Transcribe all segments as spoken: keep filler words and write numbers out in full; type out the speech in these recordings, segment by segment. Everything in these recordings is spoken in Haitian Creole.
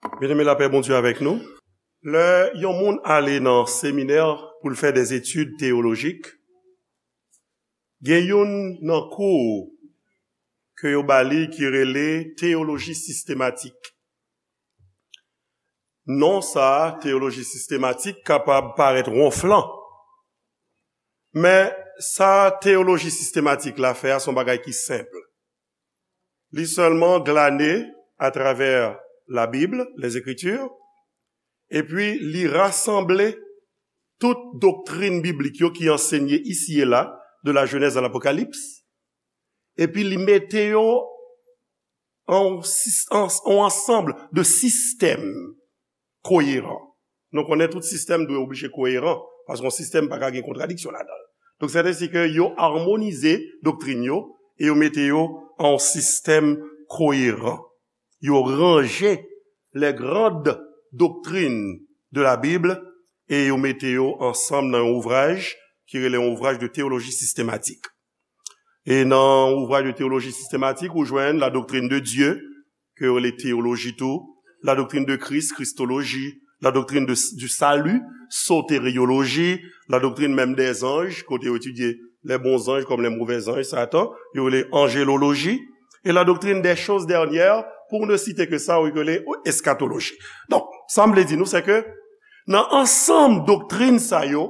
Byeneme, lapè Bondye avèk nou. Lè yon moun ale nan seminè pou l fè dèzetid teyolojik, gen youn nan kou ke yo ba li ki rele teyoloji sistematik. Non sa a, teyoloji sistematik, kapab parèt wonflan. Men sa teyoloji sistematik la fè a, se yon bagay ki senp. Li sèlman glane atravè Labib, les Écritures, epi li rasanble tout doktrin biblik yo ki ansenye isi e la, de la Genèse à l'Apocalypse, epi li mete yo an sis-, an, an ansanm de sistèm koyeran. Nou konnen tout sistèm dwe oblije koyeran, paske yon sistèm pa ka gen kontradiksyon ladan l. Donk, sèten si ke yo amonize doktrin yo e yo mete yo an yon sistèm koyeran. Yo ranje les grandes doctrines de la Bible e yo mete yo ansanm nan yon ouvraj ki rele yon ouvraj de teyoloji sistematik. E nan ouvraj de teyoloji sistematik, ou jwenn la doctrine de Dieu, ke yo rele teyoloji tou, la doctrine de Christ, kristoloji, la doctrine de, du salut, soterioloji, la doctrine même des anges, kote yo etidye les bons anges comme les mauvais anges, Satan, yo rele anjeloloji, e la doctrine des choses dernières, pour ne citer que ça, yo rele eskatoloji. Donk, sa m vle di nou, se ke nan ansanm doktrin sa yo,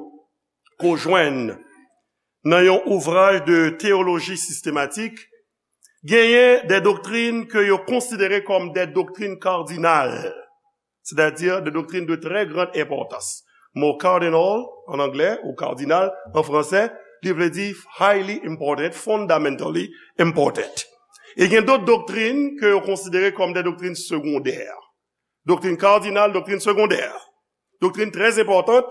ke w jwenn nan yon ouvraj de teyoloji sistematik, genyen de doktrin ke yo konsidere kòm de doktrin kardinal, sètadi de doktrin de trè gran enpòtans. Mo cardinal, an anglè, ou kardinal, an fransè, li vle di highly important, fundamentally important. E gen dòt doktrin ke yo konsidere kòm de doktrin segondè. Doktrin kardinal, doktrin segondè. Doktrin trè enpòtan,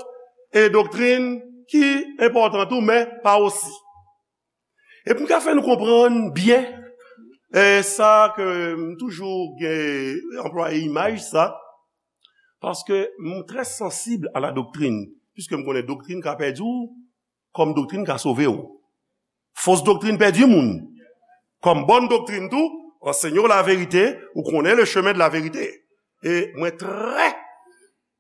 e doktrin ki enpòtan tou, men pa osi. E pou m ka fè nou konprann byen, e sa ke m toujou gen anplwaye imaj sa, paske m trè sansib a la doktrin, piske m konnen doktrin ka pèdi w, kòm doktrin ka sove w. Fos doktrin pèdi moun. Kòm bòn doktrin tou, ansenye w laverite, ou konnen le chemin de la vérité. E mwen trè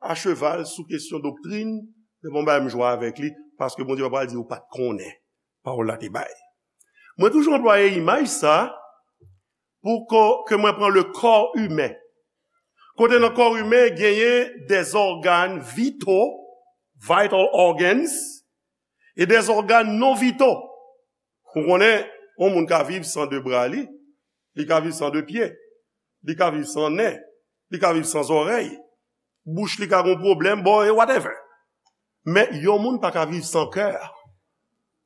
a cheval sou kesyon doktrin, se pa yon bagay m jwe avèk li, paske Bondye pa pral di ou pa t konnen. Pawòl la te bay. Mwen toujou anplwaye imaj sa pou ko-, ke mwen pran le corps humain. Kote nan kò imen genyen des organes vitaux, vital organs, e des organes non vitaux. Ou konnen, yon moun ka viv san de bra li, li ka viv san de pye, li ka viv san nen, li ka viv san zòrèy, bouch li ka gon pwoblèm, bon, e whatever. Men yon moun pa ka viv san kè,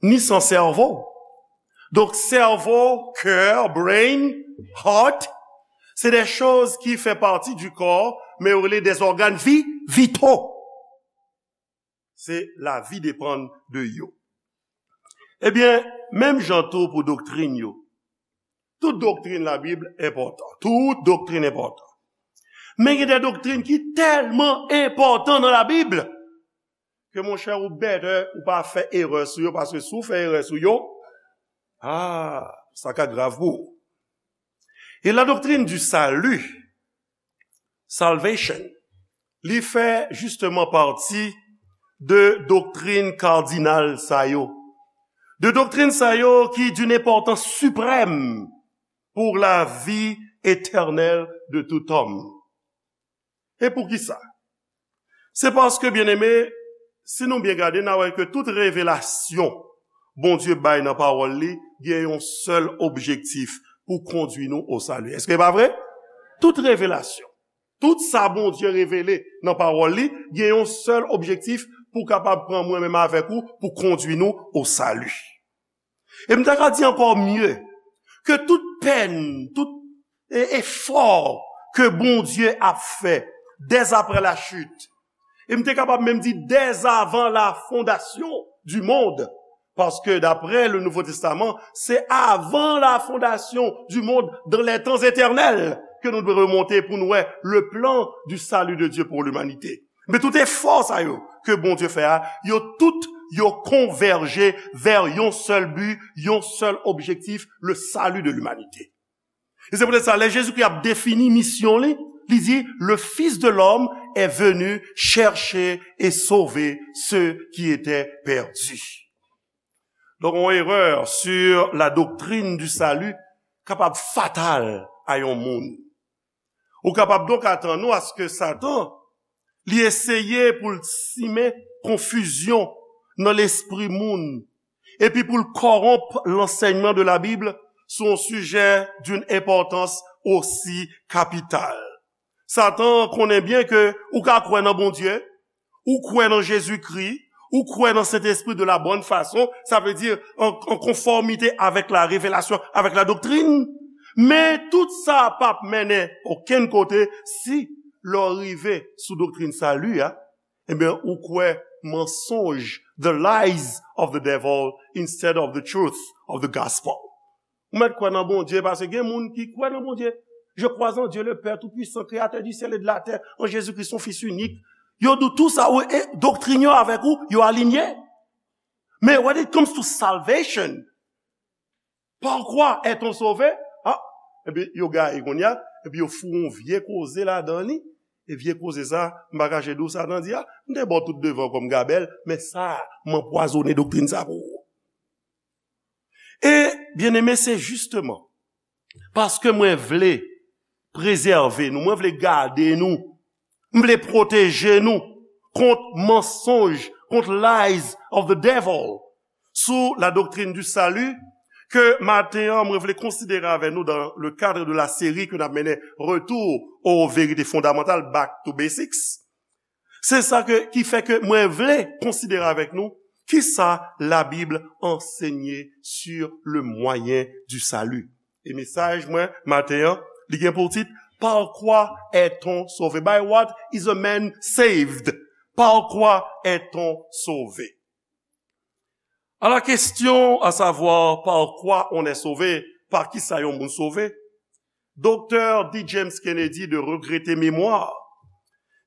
ni san sèvo. Donk, sèvo, kè, brain, heart, se de choz ki fè pati du corps, men yo rele des organes vi-, vitaux. Se lavi depann de yo. Ebyen, menm jan tou pou doktrin yo. Tout doktrin Labib enpòtan. Tout doktrin enpòtan. Men gen de doktrin ki tèlman enpòtan nan Labib ke, monchè, ou better ou pa fè erè sou yo, paske si w fè erè sou yo, ah, sa ka grav pou ou. E la doctrine du salut, salvation, li fè justement pati de doktrin kardinal sa yo. De doktrin sa yo ki d'une importance suprême pour la vie éternelle de tout homme. E poukisa? Se paske, byeneme, si nou byen gade, n a wè ke tout revelasyon Bondye bay nan pawòl li gen yon sèl objektif, pou kondui nou o sali. Èske e pa vre? Tout revelasyon, tout sa Bondye revele nan pawòl li, gen yon sèl objektif, pou kapab pran mwen menm avèk ou, pou kondui nou o sali. E m ta ka di ankò mye, ke tout pèn, tout e, efò ke Bondye ap fè dès après la chute, e m te kapab menm di dès avant la fondation du monde, paske daprè le Nouveau Testament, se avant la fondation du monde, dans les temps éternels, ke nou dwe remonte pou nou wè le plan du salut de Dieu pour l'humanité. Men tout efò sa yo ke Bondye fè a, yo tout, yo konvèje vè yon sèl bi, yon sèl objektif, le salut de l'humanité. E se poutèt sa, lè Jezikri ap defini misyon li, Li di, le Fils de l'homme est venu chercher et sauver ceux qui étaient perdus. Donk, yon erè sur la doctrine du salut kapab fatal a yon moun. Ou kapab donk atann ou aske Satan, li eseye pou l simen konfizyon nan lespri moun, epi pou l kòwonp lansèyman de la Bib sou yon sijè d'une importance aussi capitale. Satan konnen byen ke ou ka kwè nan Bondye, ou kwè nan Jezikri, ou kwè nan Sentespri de la bonne façon, sa vle di an, an konfòmite avèk la revelasyon, avèk la doktrin. Men tout sa p ap mennen okenn kote si lè w rive sou doktrin sali a, ebyen, ou kwè mansonj, the lies of the devil instead of the truth of the gospel. Ou mèt kwè nan Bondye, paske gen moun ki kwè nan Bondye. Je crois en Dieu le Père Tout-Puissant, créateur du ciel et de la terre, en Jésus-Christ, son Fils unique. Yo di w tout sa, wi, e doktrin yo avèk ou, yo alinye. Men when it comes to salvation, par quoi est-on sauvé? Ah, epi yo gaye kounye a, epi yo foure yon vye koze ladan li. E vye koze sa, m pa kache di w Satan di, ah, m te ba w tout devan kòm gabèl, men sa, m anpwazonnen doktrin sa pou ou. E, byeneme, se jisteman paske mwen vle prezève nou, mwen vle gade nou, m vle pwoteje nou kont mansonj, kont lies of the devil, sou la doctrine du salut, ke maten an, mwen vle konsidere avè nou dans le cadre de la série ke n ap mennen Retour aux vérités fondamentales, Back to Basics. Se sa ke, ki fè ke mwen vle konsidere avèk nou kisa Labib ansenye sur le moyen du salut. E mesaj mwen maten an, li gen pou tit, Par quoi est-on sauvé? By what is a man saved? Par quoi est-on sauvé? À la question, à savoir par quoi on est sauvé, pa kisa yon moun sove, Doktè D. James Kennedy de regrete memwa,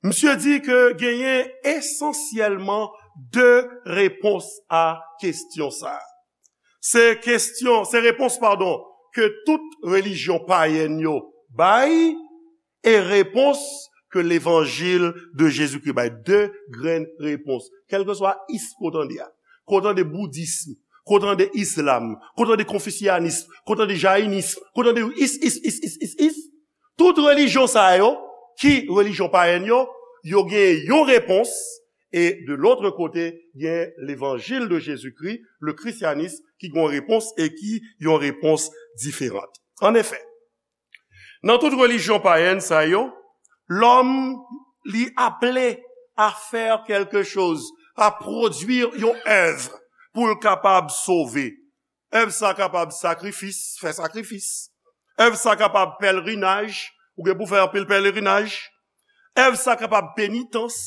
misye di ke genyen esansyèlman de repons a kesyon sa. Se kesyon, se repons, padon, ke tout relijyon payèn yo bay, e repons ke levanjil de Jezikri bay. De grenn repons. Kèlkeswa is ke w tande a. Ke w tande boudism, ke w tande islam, ke w tande konfisyanism, ke w tande jayinism, ke w tande is, is, is, is, is, is. Tout relijyon sa yo, ki relijyon payèn yo, yo gen yon repons, e de l'autre côté, gen levanjil de Jezikri, le christianisme, ki gen yon repons e ki yon repons diferan. An efè, nan tout relijyon payèn sa yo, lòm li aple a fè kèlke choz, a pwodui yon èv pou l kapab sove. Èv sa kapab sakrifis, fè sakrifis. Èv sa kapab pèlerinaj, ou gen pou fè anpil pèlerinaj. Èv sa kapab penitans.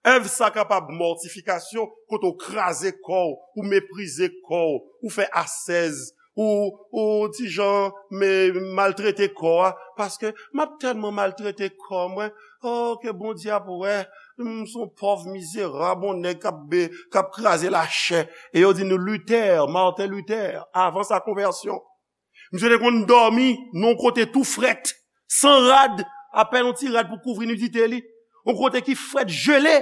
Èv sa kapab mòtifikasyon, kote w kraze kò w, ou meprize kò w, ou fè asèz, ou, ou ti jan, men, maltrete kò a, paske m ap tèlman maltrete kò mwen, oh, ke Bondye ap wè, m s on pòv mizerab, on nèg k ap be-, k ap kraze lachè. E yo di nou Luther, Martin Luther, avan sa konvèsyon. Misye te konn dòmi nan yon kote tou frèt, san rad, apèn yon ti rad pou kouvri nidite li. Yon kote ki frèt, jele.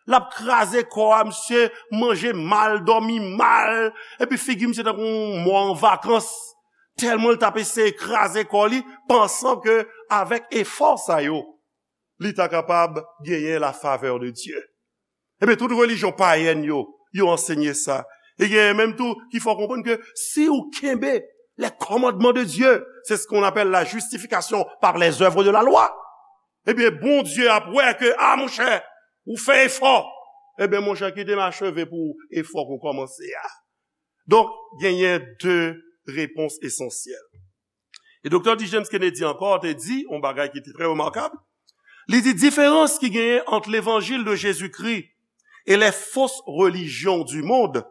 L ap kraze kò a, misye manje mal, dòmi mal, epi figi misye tankou yon mò an vakans. Tèlman l t ap eseye kraze kò li, pansan ke avèk efò sa yo, li ta kapab genyen la favè de Dye. Ebyen, tout relijyon payèn yo, yo ansenye sa. E genyen menm tou ki fè w konprann ke si w kenbe les commandements de Dieu, c'est ce qu'on appelle la justification par les œuvres de la loi. Ebyen, Bondye ap wè ke, a, monchè, ou fè efò. Ebyen, monchè, kite m acheve pou efò ke w kòmanse a. Donk, genyen de repons esansyèl. E Doktè D. James Kennedy ankò te di yon bagay ki te trè remakab. Li di, diferans ki genyen ant levanjil de Jezikri e les fausses religions du monde,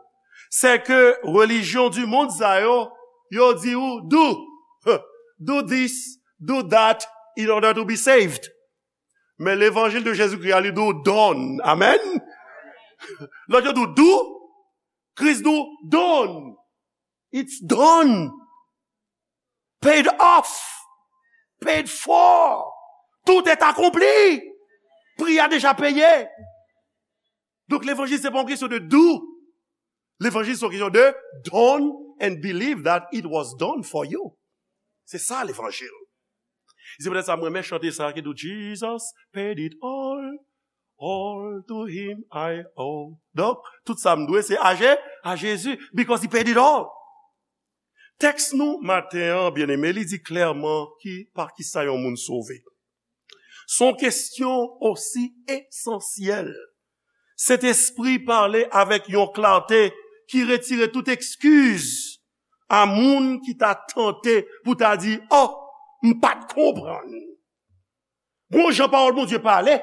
c'est que religion du monde sa yo, yo di ou, do, do this, do that in order to be saved. Men levanjil de Jezikri a, li di ou, done. Amen. Lòt yo di ou, do, Kris di ou, done. It's done. Paid off. Paid for. Tout est accompli. Pri a deja peye. Donk, levanjil se pa yon kesyon de do. Levanjil se yon kesyon de done and believe that it was done for you. Se sa levanjil. Se poutèt sa mwen renmen chante sa ki di Jesus paid it all, all to him I owe. Donk, tout sa m dwe se a Je, a Jezi, because he paid it all. Tèks nou maten an, byeneme, li di klèman ki pa kisa yon moun sove. Se yon kesyon osi esansyèl. Sentespri pale avèk yon klate ki retire tout ekskiz a moun ki ta tante pou ta di, "Oh, m pa t konprann." Gon jan pawòl Bondye pale,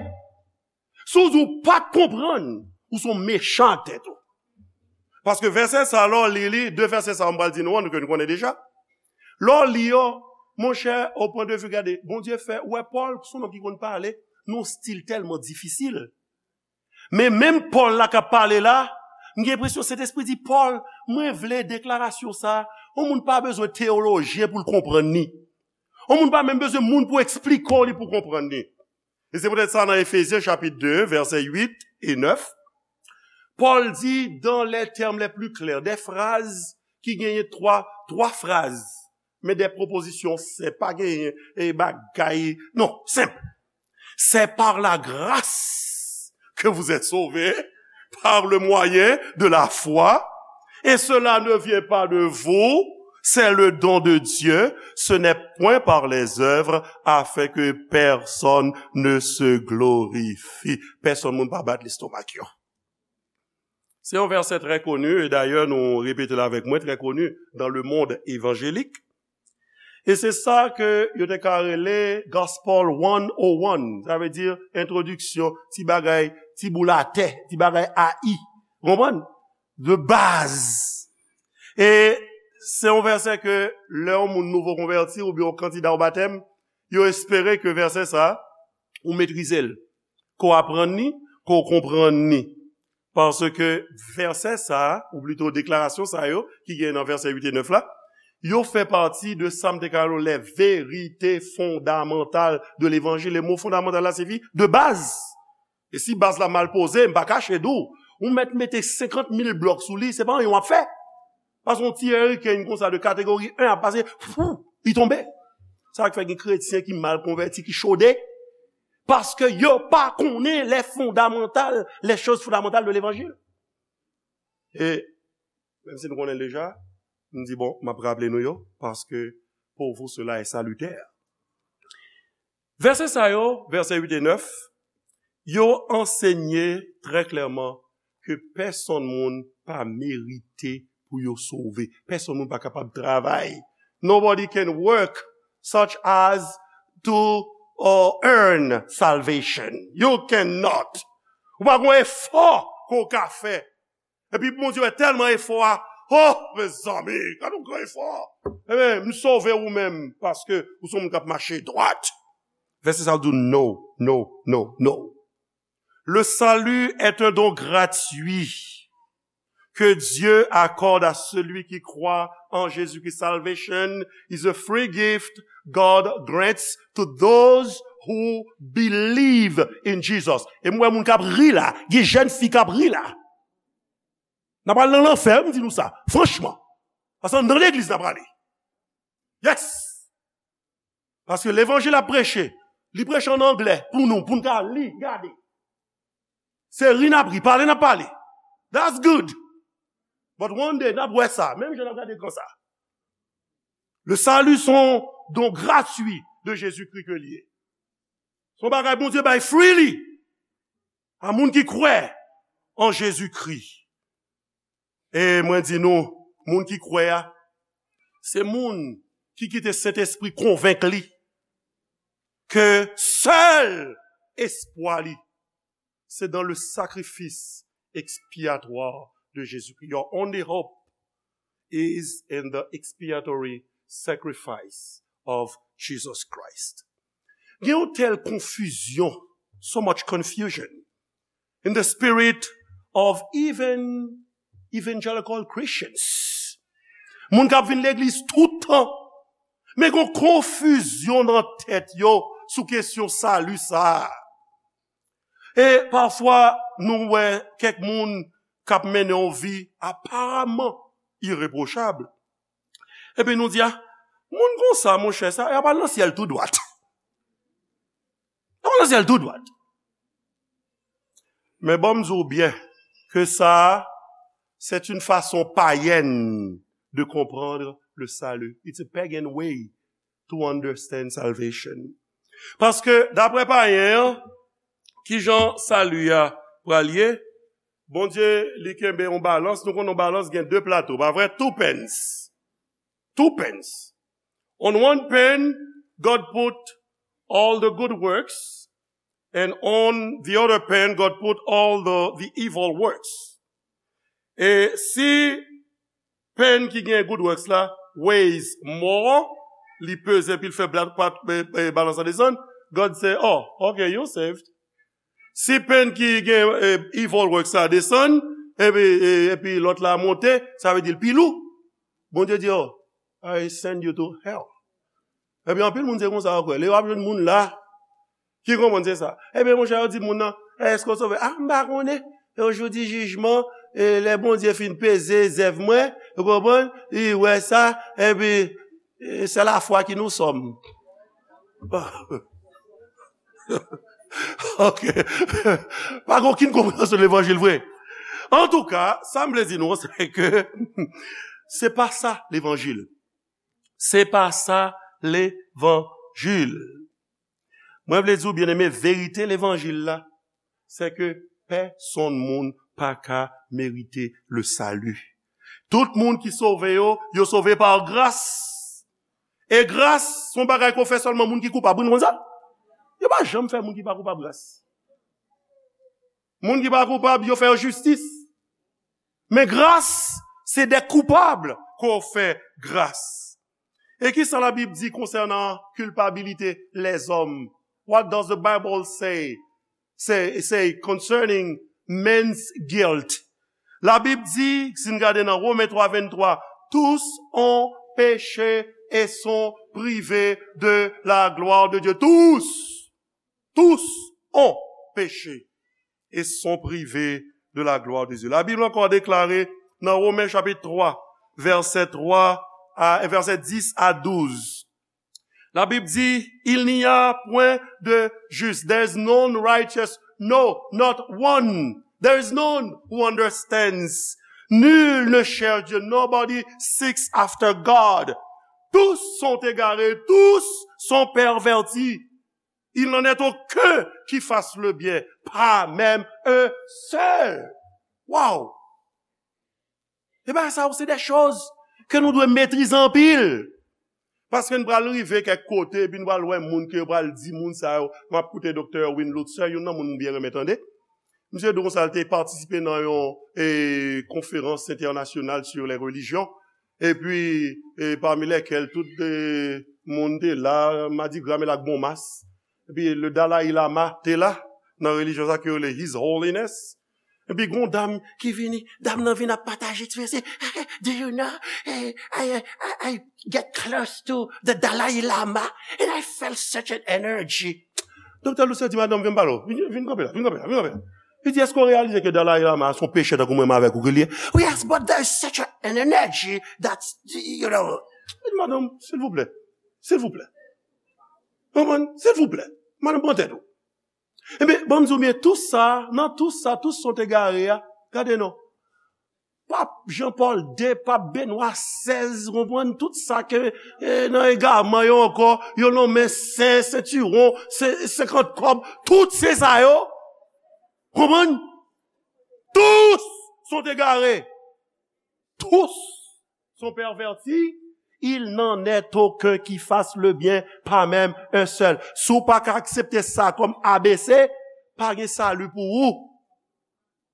si w di w pa t konprann, ou se yon mechan ak tèt ou. Paske vèsè sa, lè w li li, de vèsè sa, m pral di nou an, ke nou konnen deja. Lè w li yo, monchè, au point de vue, gade, Bondye fè, ou wè Pòl, se yon nonm ki konn pale, nan yon stil tèlman difisil. Men menm Pòl la k ap pale la, m gen enpresyon Sentespri di, "Pòl, mwen vle deklarasyon sa, yon moun pa bezwen teyolojyen pou l konprann li. Yon moun pa menm bezwen moun pou eksplike w li pou konprann li." E se poutèt sa nan Efezyen chapit de, vèsè uit e nèf, Pòl di, dans les termes les plus clairs, de fraz ki genyen twa, twa fraz, men de pwopozisyon senp, pa genyen e bagay, non, senp. C'est par la grâce que vous êtes sauvés, par le moyen de la foi, et cela ne vient pas de vous, c'est le don de Dieu, ce n'est point par les œuvres, afin que personne ne se glorifie. Pèsonn moun pa bat lestomak yo. Se yon vèsè trè koni, e dayè nou repete l avèk mwen, trè koni dans le monde évangélique. E se sa ke yo te ka rele Gospel one oh one, sa vle di entwodiksyon, ti bagay, ti boul atè, ti bagay A I. Ou konprann? De baz. E se yon vèsè ke lè yon moun nouvo konvèti oubyen yon kandida o batèm, yo espere ke vèsè sa, ou metrize l, ke w aprann li, ke w konprann li. Paske vèsè sa a, ou plito deklarasyon sa yo, ki gen nan vèsè uit e nèf la, yo fè pati de sa m te ka rele les vérités fondamentales de l'évangile. E mo fondamantal la siyifi de baz. E si baz la mal poze, m pa kache di w, ou mèt mete senkant mil blòk sou li, se pa anyen w ap fè. Paske yon ti hurricane konsa de kategori en ap pase, fou, li tonbe. Sa k fè gen kretyen ki mal konvèti, ki chode, paske yo pa konnen les fondamentales, les choses fondamentales de l'évangile. E menm si nou konnen l deja, m di, bon, m ap raple nou yo, paske pour vous cela est salutaire. Vèsè sa yo, vèsè uit e nèf, yo ansenye trè klèman ke pèsonn moun pa merite pou yo sove. Pèsonn moun pa kapab travay. Nobody can work such as to uh, earn salvation. You cannot. Ou pa gen efò ke w ka fè. Epi Bondye wè tèlman efò a, oh, mezanmi, gade yon gran efò. Ebyen, m sove ou menm, paske ou se yon moun k ap mache dwat. Vèsè sa a di, no, no, no, no. Le salut est un don gratuit que Dieu accorde à celui qui croit en Jésus-Christ. Salvation is a free gift God grants to those who believe in Jesus. E m wè moun k ap ri la, gen jèn fi k ap ri la. N ap al nan lanfè, m di nou sa, franchman. Paske nan legliz n ap prale. Yes! Paske levanjil ap preche, li preche an anglè pou nou, pou n ka li, gade. Se ri n ap ri, pale n ap pale. That's good. But one day, n ap wè sa, menm jan n ap gade ekran sa. Le salut se yon don gratuit de Jésus-Christ ke li ye. Se yon bagay Bondye bay freely a moun ki kwè an Jezikri. E mwen di nou, moun ki kwè a, se moun ki kite Sentespri konvenk li ke sèl espwa li, se dans le sacrifice expiatoire de Jésus-Christ. Your only hope is in the expiatory sacrifice of Jesus Christ. Gen yon tèl konfizyon, so much confusion in the spirit of even evangelical Christians. Moun k ap vin legliz tout tan, men gon konfizyon nan tèt yo sou kesyon sali sa a. E pafwa, nou wè kèk moun k ap mennen yon vi aparaman irepwochab. Epi nou di, a, moun konsa, monchè, sa, y ap al nan syèl tou dwat. Y ap al nan syèl tou dwat. Men bon, m di w byen ke sa, c'est une façon païenne de comprendre le salut. It's a pagan way to understand salvation. Paske, daprè payen an, kijan sali a pral ye? Bondye, li kenbe yon balans. Nou konnen yon balans gen de plato, pa vre? Two pens. Two pens. On one pen, God put all the good works, and on the other pen, God put all the, the evil works. E si pen ki gen good works la weighs more, li peze epi l fè bla- pa- e- e- balans la desann, God se, oh, ok, you saved. Si pen ki gen e, evil works la desann, epi, e- epi lòt la monte, sa vle di l pi lou. Bondye di, oh, I send you to hell. Epi anpil moun se konsa yo kwè. Lè w ap jwenn moun la ki konprann se sa. Ebyen, monchè, yo di moun nan, èske w sove? A, m pa konnen. E jou di jijman, e lè Bondye fin peze zèv mwen, ou konprann? Li wè sa, epi, e, c'est la foi qui nous sauve. Ok. Pa gen okenn konpreyansyon levanjil vre. Antouka, sa m vle di nou, se ke se pa sa levanjil. Se pa sa levanjil. Mwen vle di w, byeneme, verite levanjil la, se ke pèsonn moun pa ka merite le salut. Tout moun ki sove yo, yo sove pa gras. E gras, se yon bagay ke w fè sèlman moun ki koupab. Wi, nou konn sa? Yo pa janm fè moun ki pa koupab gras. Moun ki pa koupab, yo fè yo jistis. Men gras, se de koupab ke w fè gras. E kisa Labib di konsènan kilpabilite lèzòm? What does the Bible say, say, say concerning men's guilt? Labib di, si n gade nan Women twa venntwa, tous ont péché et sont privés de la gloire de Dieu. Tous, tous ont péché et sont privés de la gloire de Dieu. Labib ankò deklare nan Women chapit twa, vèsè twa a, vèsè dis a douz. Labib di, il n'y a point de juste. There is none righteous, no, not one. There is none who understands. Nul ne cherche Dieu. Nobody seeks after God. Tous sont égarés, tous sont pervertis. Il n'en est aucun qui fasse le bien, pas même un seul. Wow! E bagay sa yo, se de choz ke nou dwe metrize anpil. Paske n pral rive kèk kote, epi n pral wè moun ke yo pral di moun sa yo. M ap koute Doktè Erwin Lutzer, youn nan moun m byen renmen tande. Misye di konsa, l te patisipe nan yon e, konferans entènasyonal sur les religions. Epi, e, pami lèkèl tout e, moun te la, madigra mele ak bon mas. Epi, le Dalai Lama te la, nan relijyon sa ke yo rele His Holiness. Epi, gon dam ki vini, dam nan vin ap pataje ti mesye. Do you know? Eh, I, I, I get close to the Dalai Lama and I felt such an energy. Doktè Lutzer di, madanm, vin pale w. Vin, vin kanpe la, vin kanpe la, vin kanpe la. Li di, èske w reyalize ke Dalai Lama a se yon pechè tankou mwen menm avèk ou ke li ye? Yes, but there is such an energy that, you know. Li di, madanm, silvouplè, silvouplè. Konprann? Silvouplè. Madanm, pran tèt ou. Ebyen, ban m di w byen, tou sa, nan tou sa, tou sa w te gare a, gade non. Pap Jan Pòl de, Pap Benwa sèz, konprann, tout sa ke e, nan egaman yo ankò, yo nonmen sen, sentiwon, sen, senkant kòb, tout se sa yo. Konprann? Tous sont égarés. Tous sont pervertis. Il n'en est aucun qui fasse le bien, pas même un seul. Si w pa ka aksepte sa kòm A B C, pa gen sali pou ou.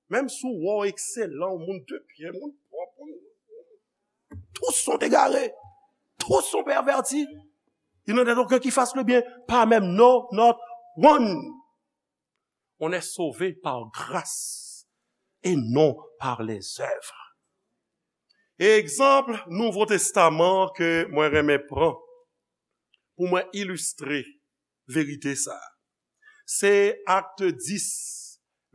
Menm si w wè w ekselan, w moun de byen, moun pwòp, moun, tous sont égarés, tous sont pervertis. Il n'en est aucun qui fasse le bien, pas même, no, not one. On est sauvé par grâce et non par les œuvres. E egzanp Nouvo Testaman ke mwen renmen pran pou mwen ilistre verite sa. Se Acte dix,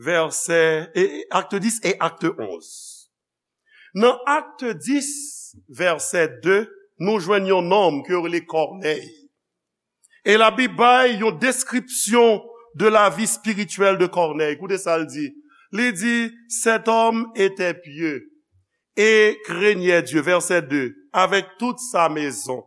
vèsè, e, Acte dix e Acte onze. Nan Acte dix, vèsè de, nou jwenn yon nonm ke yo rele Kònèy. E Labib bay yon deskripsyon de la vie spirituelle de Corneille. Koute sa l di. Li di, cet homme était pieux et craignait Dieu, verset deux, avec toute sa maison.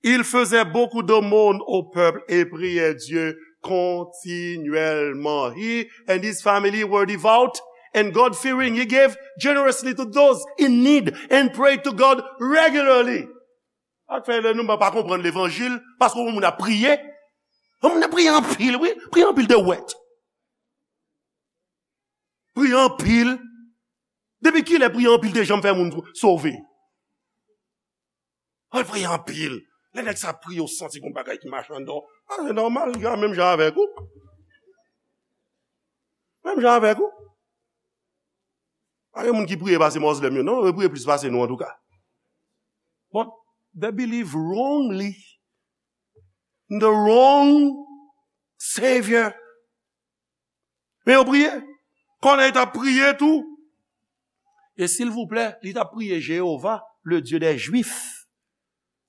Il faisait beaucoup d'aumônes au peuple et priait Dieu continuellement. He and his family were devout and God-fearing. He gave generously to those in need and prayed to God regularly. Sa k fè lè nou pa konprann levanjil, paske yon moun ap priye. Yon moun ap priye anpil, wi. Priye anpil de wèt. Priye anpil. Depi kilè priye anpil te janm fè moun sove? Al priye anpil. Lè nèg sa priye, ou santi gon bagay ki mache anndan w. A, se nòmal, li ka menm jan avèk ou. Menm jan avèk ou. Pa gen moun ki priye pase Mozlèm yo, non, yo priye plis pase nou, antouka. But they believe wrongly in the wrong Savior. Men yo priye. Kònèy t ap priye tou. E silvouplè, li t ap priye Jewova, le Dieu des Juifs.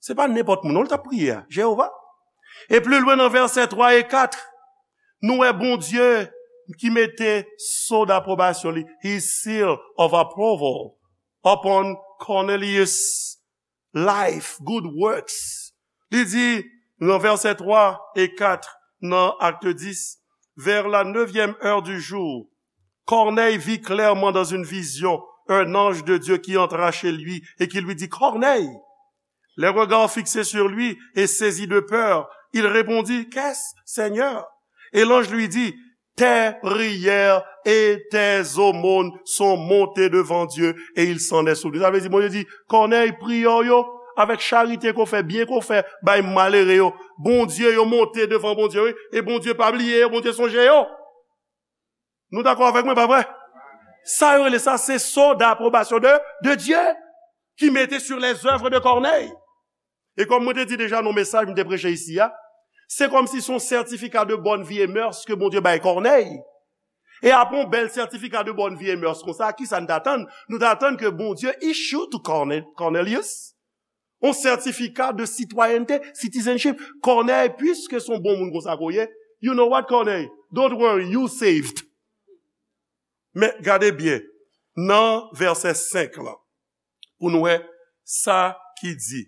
Se pa nenpòt moun, non, li t ap priye a. Jewova. E pli lwen nan vèsè twa e kat, nou wè Bondye ki mete so d'aprobasyon li, his seal of approval, upon Cornelius' life, good works. Li di nan vèsè twa e kat nan Acte dix, vers la neuvième heure du jour, Corneille vit clairement dans une vision un ange de Dieu qui entra chez lui et qui lui dit, Corneille. Les regards fixés sur lui et saisi de peur, il répondit, Qu'est-ce, Seigneur? Et l'ange lui dit, Tes prières et tes aumônes sont montées devant Dieu et il s'en est souvenu. Sa vle di, Bondye di, Kònèy, priyè w yo, avèk charite ke w fè, byen ke w fè bay malere yo, Bondye, yo monte devan Bondye, wi. E Bondye pa bliye yo, Bondye sonje yo. Nou dakò avèk mwen, pa vre? Sa yo rele sa, se so d'aprobasyon de, de Dieu, ki mete sur les œuvres de Corneille. E kòm mwen te di deja nan mesaj mwen te preche isi a, se kòmsi se yon certificat de bonne vie et mœurs ke Bondye bay Kònèy. E apre yon bèl certificat de bonne vie et mœurs konsa, kisa n t atann? Nou t atann ke Bondye issue to Corne-, Cornelius yon certificat de citoyenneté, citizenship. Kònèy, puiske se yon bon moun konsa ke w ye, you know what, Kònèy? Don't worry, you saved. Men gade byen, nan vèsè senk lan, pou nou wè sa ki di.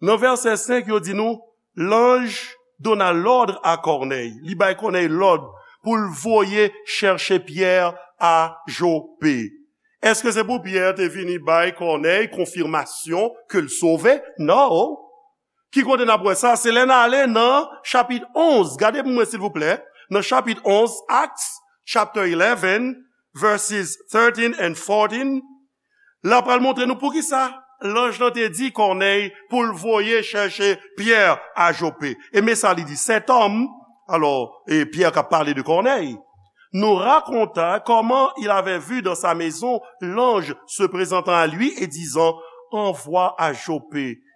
Nan vèsè senk, yo di nou, l'ange donna l'ordre à Corneille. Li bay Kònèy lòd pou l voye chèche Pyè a Jope. Èske se pou Pyè te vini bay Kònèy konfimasyon ke l sove? Non. Ki kote n ap wè sa? Se lè n ale nan chapit onz. Gade pou mwen, silvouplè. Nan chapit onz, Acts chapter eleven, verses thirteen and fourteen. L ap pral montre nou poukisa lanj lan te di Kònèy pou l voye chèche Pyè a Jope. E men sa li di, Cet homme, alors, et Pierre qui a parlé de Corneille, nous raconta comment il avait vu dans sa maison l'ange se présentant à lui et disant, Envoie à Jope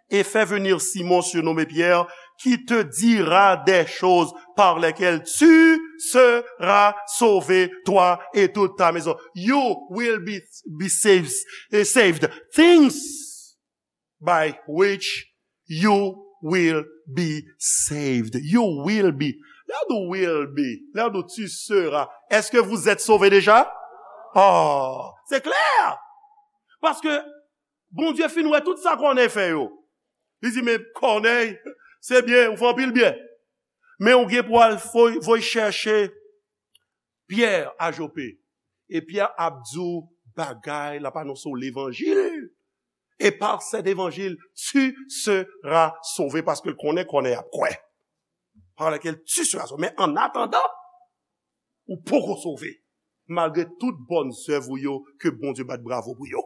et fais venir Simon surnommé Pierre, qui te dira des choses par lesquelles tu seras sauvé, toi et toute ta maison. You will be, be saved, eh, saved. Things by which you will be saved. You will be. Lè w di will be, lè w di tu seras, est-ce que vous êtes sauvé déjà? Oh, c'est clair. Paske Bondye fin wè tout sa Kònèy fè yo. Li di, men Kònèy, se byen, ou fè anpil byen. Men ou gen pou al voy, voy chèche Pyè a Jope. E Pyè ap di w bagay, l ap anonse w levanjil. Et par cet évangile, tu seras sauvé, paske l konnen Kònèy ap kwè. Par laquelle tu seras sauvé. Men an atandan, ou poko sove, malgre tout bòn zèv ou yo ke Bondye bat bravo pou yo.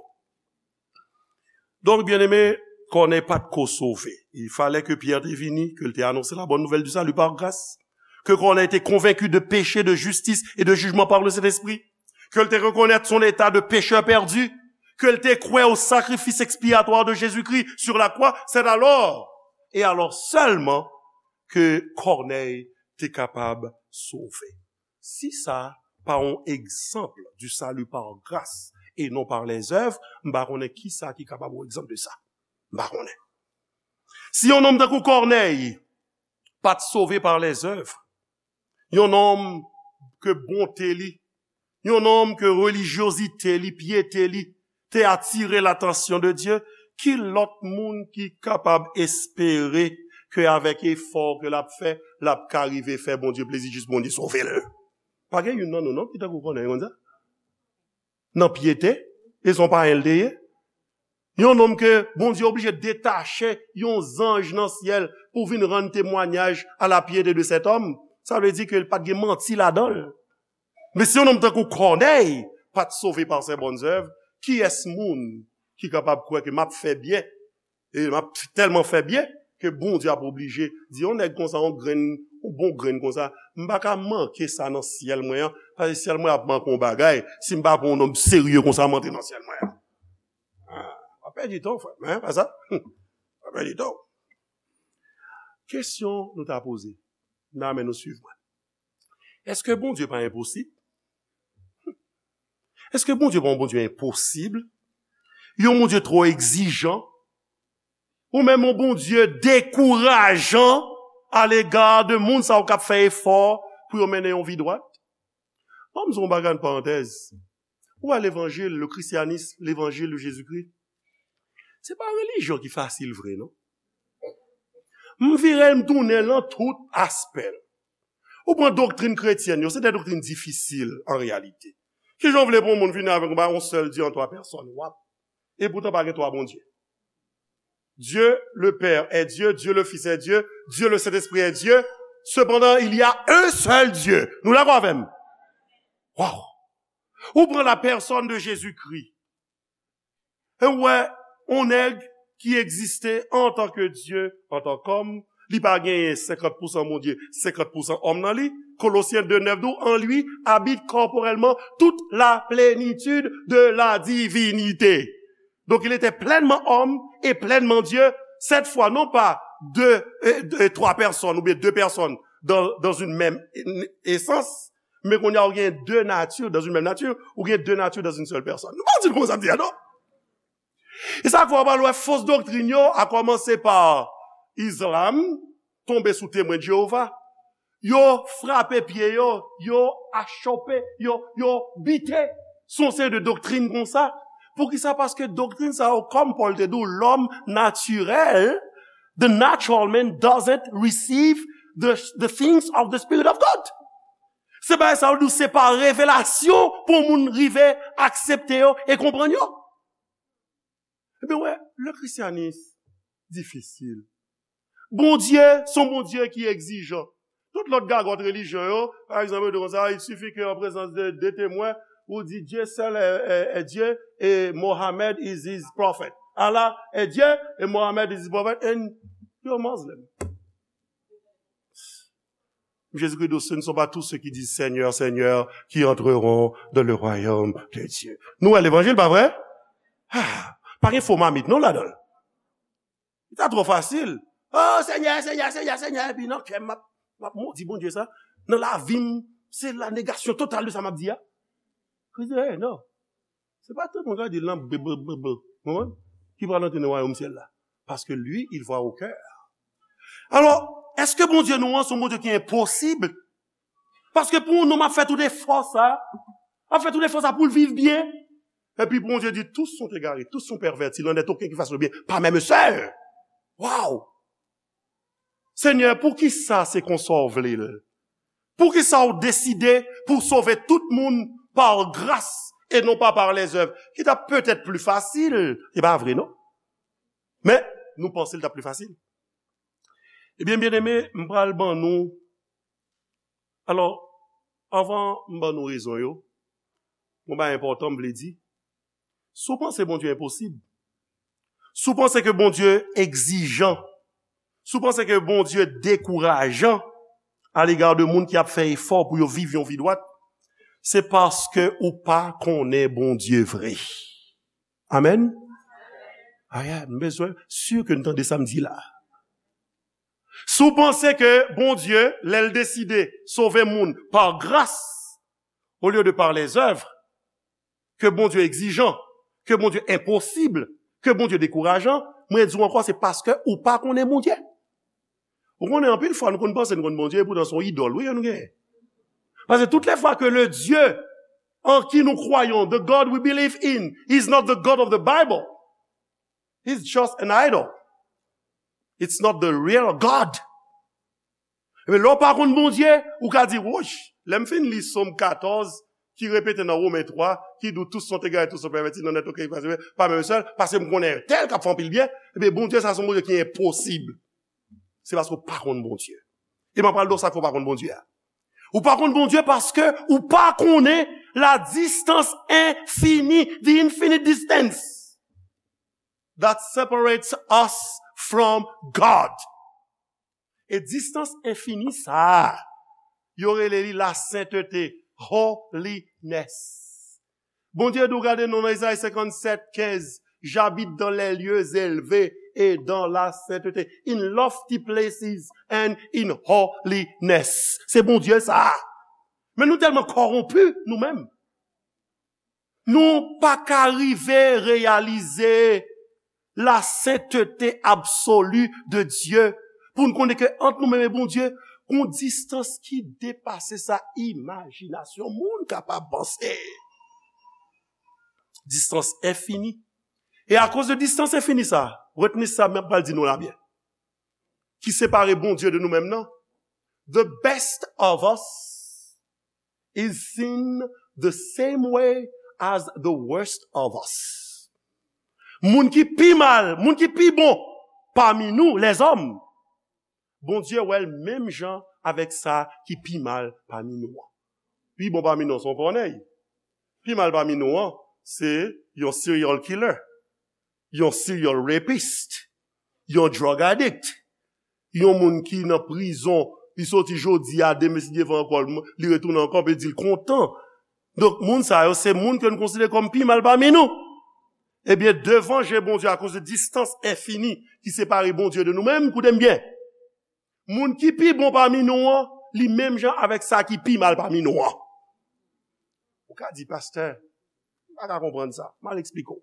Donk, byeneme, Kònèy pa t ko sove. Il fallait que Pierre te vini, ke l te anonse la bonne nouvelle du salut par grâce, ke Kònèy te konvenki de péché, de justice et de jugement par le Saint-Esprit, ke l te rekonèt son état de pécheur perdu, ke l te kwè au sacrifice expiatoire de Jésus-Christ sur la croix. C'est alors, et alors seulement, ke Kònèy te kapab sove. Si sa pa yon egzanp du salut par grâce et non par les œuvres, m pa konnen kisa ki kapab yon egzanp de sa. M pa konnen. Si yon nonm tankou Kònèy pa t sove par les œuvres, yon nonm ke bonte li, yon nonm ke relijyozite li, pyete li, te atire latansyon de Dye, ki lòt moun ki kapab espere ke avèk efò ke l ap fè, l ap ka rive fè Bondye plezi jis Bondye sove l? Pa gen youn nan nou non ki tankou Kònèy konn sa? Nan pyete, e se yon payen l te ye. Yon nonm ke Bondye oblije detache yon zanj nan syèl pou vin rann temwanyaj à la piété de cet homme. Sa vle di ke l pa t gen manti ladan l. Men si yon nonm tankou Kònèy pa t sove par ses bonnes œuvres, kiyès moun ki kapab kwè ke m ap fè byen, e m ap tèlman fè byen ke Bondye ap oblije di yon nèg konsa, yon grenn, yon bon grenn konsa, m pa ka manke sa nan syèl mwen an, paske syèl mwen ap manke yon bagay si m pa pran yon nonm serye konsa m antre nan syèl mwen an. Ah, w ap pèdi tan w, frè m, en, pa sa? W ap pèdi tan w. Kesyon nou ta poze, nan men nou swiv mwen. Èske Bondye pa enposib? Èske Bondye pa yon Bondye enposib? Yon Bondye twò egzijan? Ou menm yon Bondye dekourajan alega de moun sa yo k ap fè efò pou yo mennen yon vi dwat? Ban m di w yon bagay, yon parantèz. Ou wè levanjil, le christianisme, levanjil de Jezikri, se pa yon relijyon ki fasil vre, non. M vire l, m tounen l nan tout aspè l. Ou pran doktrin kretyèn yo, se de doktrin difisil an reyalite. Kijan w vle pou yon moun vini avèk yon, yon sèl Dye an twa pèsòn? W ap, e poutan pa gen twa Bondye. Dieu le Père est Dieu, Dieu le Fils est Dieu, Dieu le Saint-Esprit est Dieu. Cependant, il y a un seul Dieu. Nou dakò avè m? Waw! Ou pran la personne de Jésus-Christ. E ou wè, yon nèg ki egziste antanke Dye, antanke òm, li pa genyen senkant pousan Bondye, senkant pousan òm nan li. Kolosyen de nèf di w, en lui habite corporellement toute la plénitude de la divinité. Donc il était pleinement homme et pleinement Dieu, cette fois non pas deux, euh, deux, trois personnes ou bien deux personnes dans, dans une même essence, men kounye a ou gen de nati dans une même nature, ou gen de nati dans une seule personne. Nou pa di l konsa m di a non. E sa k fè w pral wè fos doktrin yo, a kòmanse pa Islam, tonbe sou Temwen de Jewova. Yo frape pye yo, yo achope, yo, yo bite. Se yon seri de doktrin konsa. Poukisa? Paske doktrin sa yo, kòm Pòl te di w, lòm natirèl, the natural man doesn't receive the, the things of the Spirit of God. Se bagay sa yo di w, se pa revelasyon pou yon moun rive aksepte yo e konprann yo. Ebyen, wè, le christianisme difisil. Bondye, se yon Bondye ki egzijan. Tout lòt gagòt relijyon yo, pa egzanp, yo di konsa, il suffit que en présence de deux témoins, ou di Dieu seul est, est, est Dieu et Mohammed is his prophet. Allah est Dieu et Mohammed is his prophet, and you're Muslim. Jezikri di, ce ne sont pas tous ceux qui disent Seigneur, Seigneur, qui entreront dans le royaume de Dieu. Nou wè levanjil, pa vre? Ah, pa gen fo mamit non ladan l. Li ta twò fasil. Oh, Senyè, Senyè, Senyè, Senyè. Epi nan kè m, m ap, m ap modi Bondye sa. Nan lavi m, se la négation totale de sa m ap di a. Kris di, hey, non. Se pa tout moun k ap di l nan bl, bl, bl, bl, konprann? Ki pral antre nan wayòm syèl la. Paske li, il voit au cœur. Alò, èske Bondye nou an se yon Bondye ki enposib? Paske pou yon nonm ap fè tout efò sa, ap fè tout efò sa pou l viv byen, epi Bondye di, tous sont égarés, tous sont pervertis, il n'en est aucun qui fasse le bien, pas même un seul. Waw! Senyè, poukisa se konsa w vle l? Poukisa w deside pou w sove tout moun par grâce et non pas par les œuvres? Ki t ap petèt pli fasil, se pa vre, non? Men, nou panse l t ap pli fasil. Ebyen, byeneme, m pral ban nou. Alò, anvan m ban nou rezon yo, yon bagay enpòtan m vle di. Si w panse Bondye enposib, si w panse ke Bondye egzijan, si w panse ke Bondye dekourajan alega de moun ki ap fè efò pou yo viv yon vi dwat, se paske ou pa konnen Bondye vre. Amèn? Aya, m bezwen si ke n tande sa m di la. Si w panse ke Bondye, lè l deside sove moun pa gras, olye de pa lèzèv, ke Bondye egzijan, ke Bondye enposib, ke Bondye dekourajan, mwen di w ankò, se paske ou pa konnen Bondye. Ou konnen anpil fwa nou konn panse nou konn Bondye, epoutan se yon idòl, wi, nou genyen. Paske tout lè fwa ke le Dieu en qui nous croyons, the God we believe in, is not the God of the Bible. He's just an idol. It's not the real God. Ebyen, lè w pa konn Bondye, ou ka di, woch, lè m fin li Sòm katòz, ki repete nan Women twa, ki di, tous sont égarés, tous sont pervertis, nul n'est auquel pas même seul, paske m konnen tèl k ap fè anpil byen, ebyen, Bondye sa se yon Bondye ki enposib. Se paske w pa konn Bondye. E m ap pral di w sa k fè w pa konn Bondye a. Ou pa konn Bondye paske ou pa konnen la distance infinie, the infinite distance that separates us from God. E distance infini sa a, yo rele li la sainteté, holiness. Bondye di w, gade non nan Izayi senkannsèt kenz, j'habite dans les lieux élevés et dans la sainteté, in lofty places and in holiness. Se Bondye sa a. Men nou tèlman kòwonpi nou menm. Nou pa ka rive reyalize la sainteté absolue de Dieu pou n konnen ke ant nou menm e Bondye, gon distans ki depase sa imajinasyon moun kapab panse. Distans enfini. E akoz de distans enfini sa, retni sa m pral di nou la byen, ki separe Bondye de nou menm nan, the best of us is seen the same way as the worst of us. Moun ki pi mal, moun ki pi bon pami nou, lèzòm, Bondye wè l menm jan avèk sa ki pi mal pami nou an. Pi bon pami nou an, se yon kònèy. Pi mal pami nou an, se yon serial killer, yon serial rapist, yon drug addict, yon moun ki nan prizon, li soti jodi a, demen si Dye vle ankò, li retounen ankò, epi di l kontan. Donk, moun sa yo, se moun ke nou konsidere kòm pi mal pami nou. Ebyen, devan je Bondye, akoz de distans enfini ki separe Bondye de nou menm, koute m byen. Moun ki pi bon pami nou an, li menm jan avèk sa ki pi mal pami nou an. Ou ka di, pastè, m pa ka konprann sa. M al eksplike w.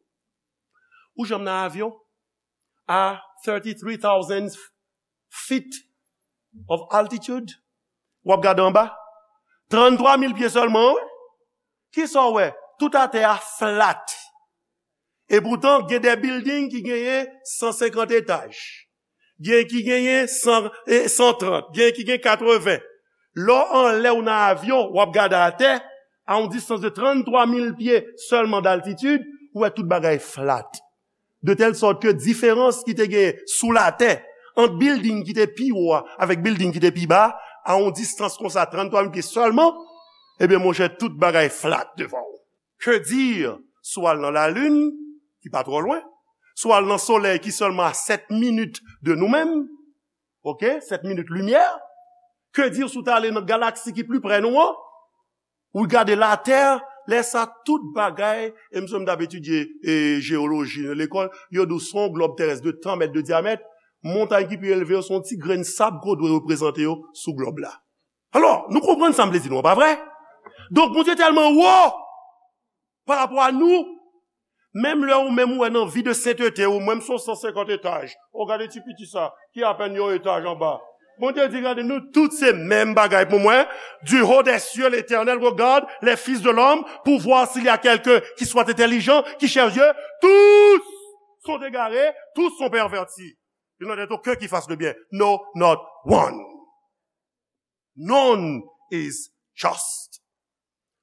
Ou janm nan avyon a thirty-three thousand feet of altitude? W ap gade anba. Tranntwa mil pye sèlman, wi. Kisa w wè? Tout atè a flat. Epoutan, gen de bilding ki genyen san senkant etaj. Gen ki genyen san, e, san trant. Gen ki gen katreven. Lè w anlè ou nan avyon, w ap gade atè, a yon distans de tranntwa mil pye sèlman d'altitid, ou wè tout bagay flat. De tèl sòt ke diferans ki te genyen sou latè ant bilding ki te pi wo a avèk bilding ki te pi ba a, a yon distans konsa, tranntwa mil pye sèlman, ebyen, monchè, tout bagay flat devan w. Que dire si w al nan lalin, ki pa twò lwen, si w al nan solèy ki sèlman a sèt minit de nou menm, oke, sèt minit limyè, que dire si w ta ale nan galaksi ki pli prè nou an, ou gade latè, lè sa tout bagay, e m sonje m t ap etidye, e, jewoloji nan lekòl, yo di w se yon glòb terès de tan mèt de dyamèt, montay ki pi elve yo se yon ti grenn sab ke w dwe reprezante yo sou glòb la. Alò, nou konprann sa m vle di nou an, pa vre? Donk, Bondye tèlman wo pa rapò a nou, menm lè ou menm ou wè nan vi de sentete ou, mwen m se yon san senkant etaj. O, gade ti piti sa, ki apèn yon etaj anba. Bondye di, gade, nou tout se menm bagay pou mwen. Du haut des cieux, l'Éternel regarde les fils de l'homme pour voir s'il y a quelqu'un qui soit intelligent, qui cherche Dieu. Tous sont égarés, tous sont pervertis. Il n'en est aucun qui fasse le bien. No, not one. None is just.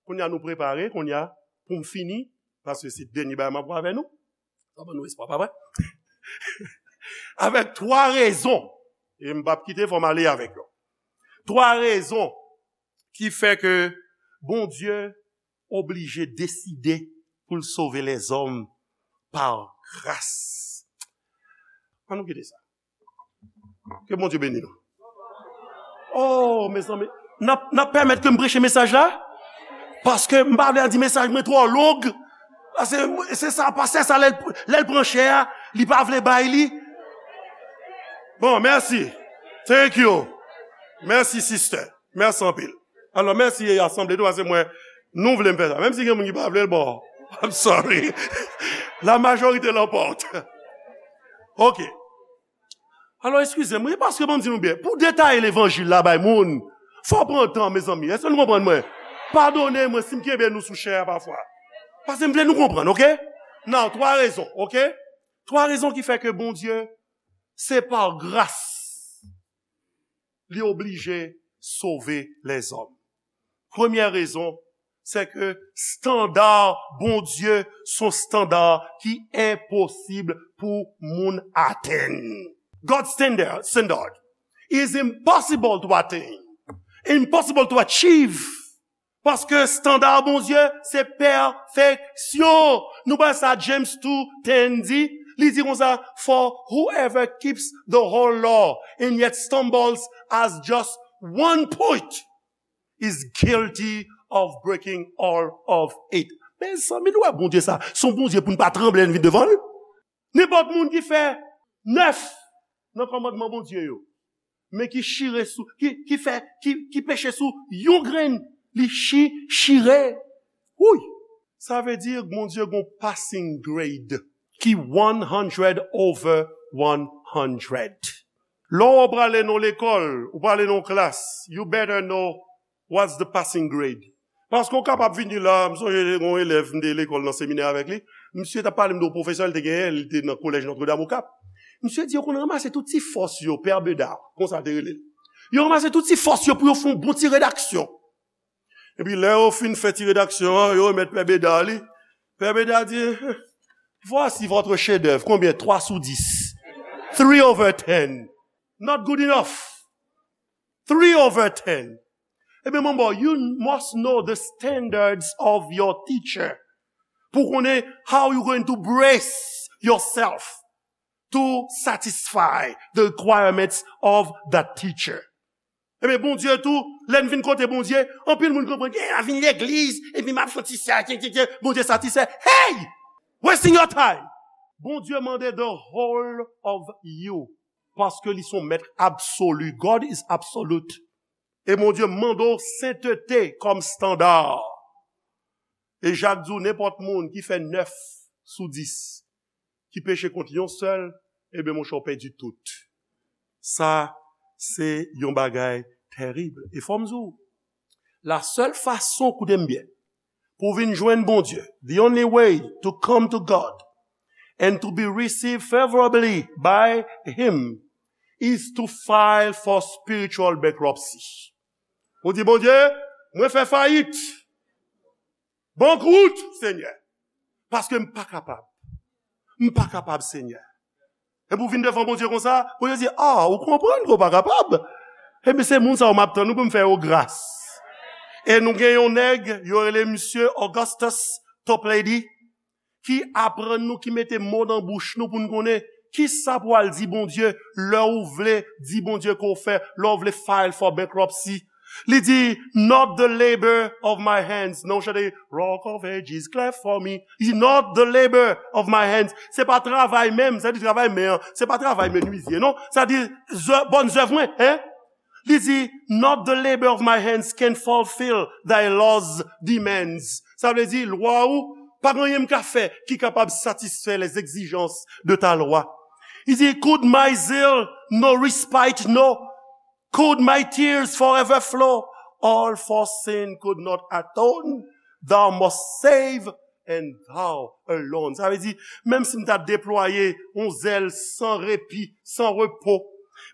Kounye a nou prepare, kounye a, pou m fini, paske se dènye bagay m ap wè avè nou. Sa ban nou espwa, pa vre? Avèk twa rezon, e m p ap kite, fò m ale avèk yo. Twa rezon ki fè ke Bondye oblije deside pou l sove lèzòm pa gras. Ann nou kite sa. Ke Bondye beni nou. Oh, mezanmi, n ap, n ap pèmèt ke m preche mesaj la? Paske m pa vle di mesaj mwen twò long. Paske se sa, pastè sa, lè l, lè l pran chè a, li pa vle bay li. Bon, mèsi. Thank you. Mèsi, sister. Mèsi anpil. Alò, mèsi asanble tou, paske mwen, nou vle m fè sa. Menm si gen moun ki pa vle l, bon, I'm sorry. La majorité l'emporte. Ok. Alò, eskize m, wi, paske ban m di nou byen, pou detaye levanjil la bay moun, fò w pran tan, mezanmi. Èske nou konprann mwen? Padone mwen si m kenbe nou sou chè a pafwa. Paske m vle nou konprann, ok? Now, twa rezon, ok? Twa rezon ki fè ke Bondye, se pa gras li oblije sove lèzòm. Premyè rezon, se ke estanda Bondye se yon estanda ki enposib pou moun atenn. God's standard, standard is impossible to attain, impossible to achieve. Paske estanda Bondye se pèfeksyon. Nou wè sa James two ten di, li di konsa, "For whoever keeps the whole law and yet stumbles at just one point is guilty of breaking all of it." Mezanmi, nou wè Bondye sa, se yon Bondye pou n pa tranble lè n vin devan l. Nenpòt moun ki fè nèf nan kòmandman Bondye yo, men ki chire sou, ki, ki fè, ki, ki peche sou yon grenn, li chi, chire. Wouy! Sa vle di Bondye gon passing grade ki one hundred over one hundred. Lè w prale nan lekòl, ou prale nan klas, you better know what's the passing grade. Paske w kapab vini la, m sonje yon elèv m te lekòl nan seminè avèk li. Misye t ap pale m de yon pwofesè l te genyen, li te nan kolèj Notre Dame au Cap. Misye di yo konn ranmase tout ti fòs yo, Pè Beda, konsa l te rele l. Yo ranmase tout ti fòs yo pou yo fè yon bon ti redaksyon. Epi lè yo fin fè ti redaksyon an, yo remèt Pè Beda li. Pè Beda di, "Voici votre chef-d'œuvre. Combien? Trois sous dix. Three over ten. Not good enough. Three over ten." Ebyen, manbo, you must know the standards of your teacher. Pou konnen how you going to brace yourself to satisfy the requirements of that teacher. Ebyen, Bondye tou, lè n vin kote Bondye, anpil moun konprann, "Yeah, m vin legliz, epi m ap fè ti sa, kye, kye, kye, Bondye satisfè." Hey! Wasting your time! Bondye mande the whole of you. Paske li se yon mèt absolu. God is absolute. E Bondye mande w sentete kòm estanda. E Jak di w, nenpòt moun ki fè nèf sou dis, ki peche kont yon sèl, ebyen, monchè, w pèdi tout. Sa, se yon bagay terib. E fò m di w, la sèl fason, koute m byen, pou w vin jwenn Bondye, the only way to come to God and to be received favorably by Him is to file for spiritual bankruptcy. Ou di, "Bondye, mwen fè fayit. Bankwout, Senyè. Paske m pa kapab. M pa kapab, Senyè." Epi w vin devan Bondye konsa, Bondye di, "Ah, ou konprann ke w pa kapab? Ebyen, se moun sa yo m ap tann ou pou m fè yo gras." E nou gen yon nèg, yo rele misye Augustus Toplady, ki aprann nou, ki mete mo nan bouch nou pou n konnen kisa pou w al di Bondye lè w vle di Bondye ke w fè, lè w vle file for bankruptcy. Li di, "Not the labor of my hands." Non, chante, "Rock of Ages, cleft for me." Li di, "Not the labor of my hands." Se pa travay men m, sa di travay men an. Se pa travay menizye, non. Sa di, zè-, bòn zèv mwen, hein? Li di, "Not the labor of my hands can fulfill thy law's demands." Sa vle di, lwa ou, pa gen anyen m ka fè ki kapab satisfè les exigences de ta loi. Li di, "Could my zeal no respite know? Could my tears forever flow? All for sin could not atone. Thou must save and thou alone." Sa vle di, menm si m ta deplwaye yon zèl san repi, san repo,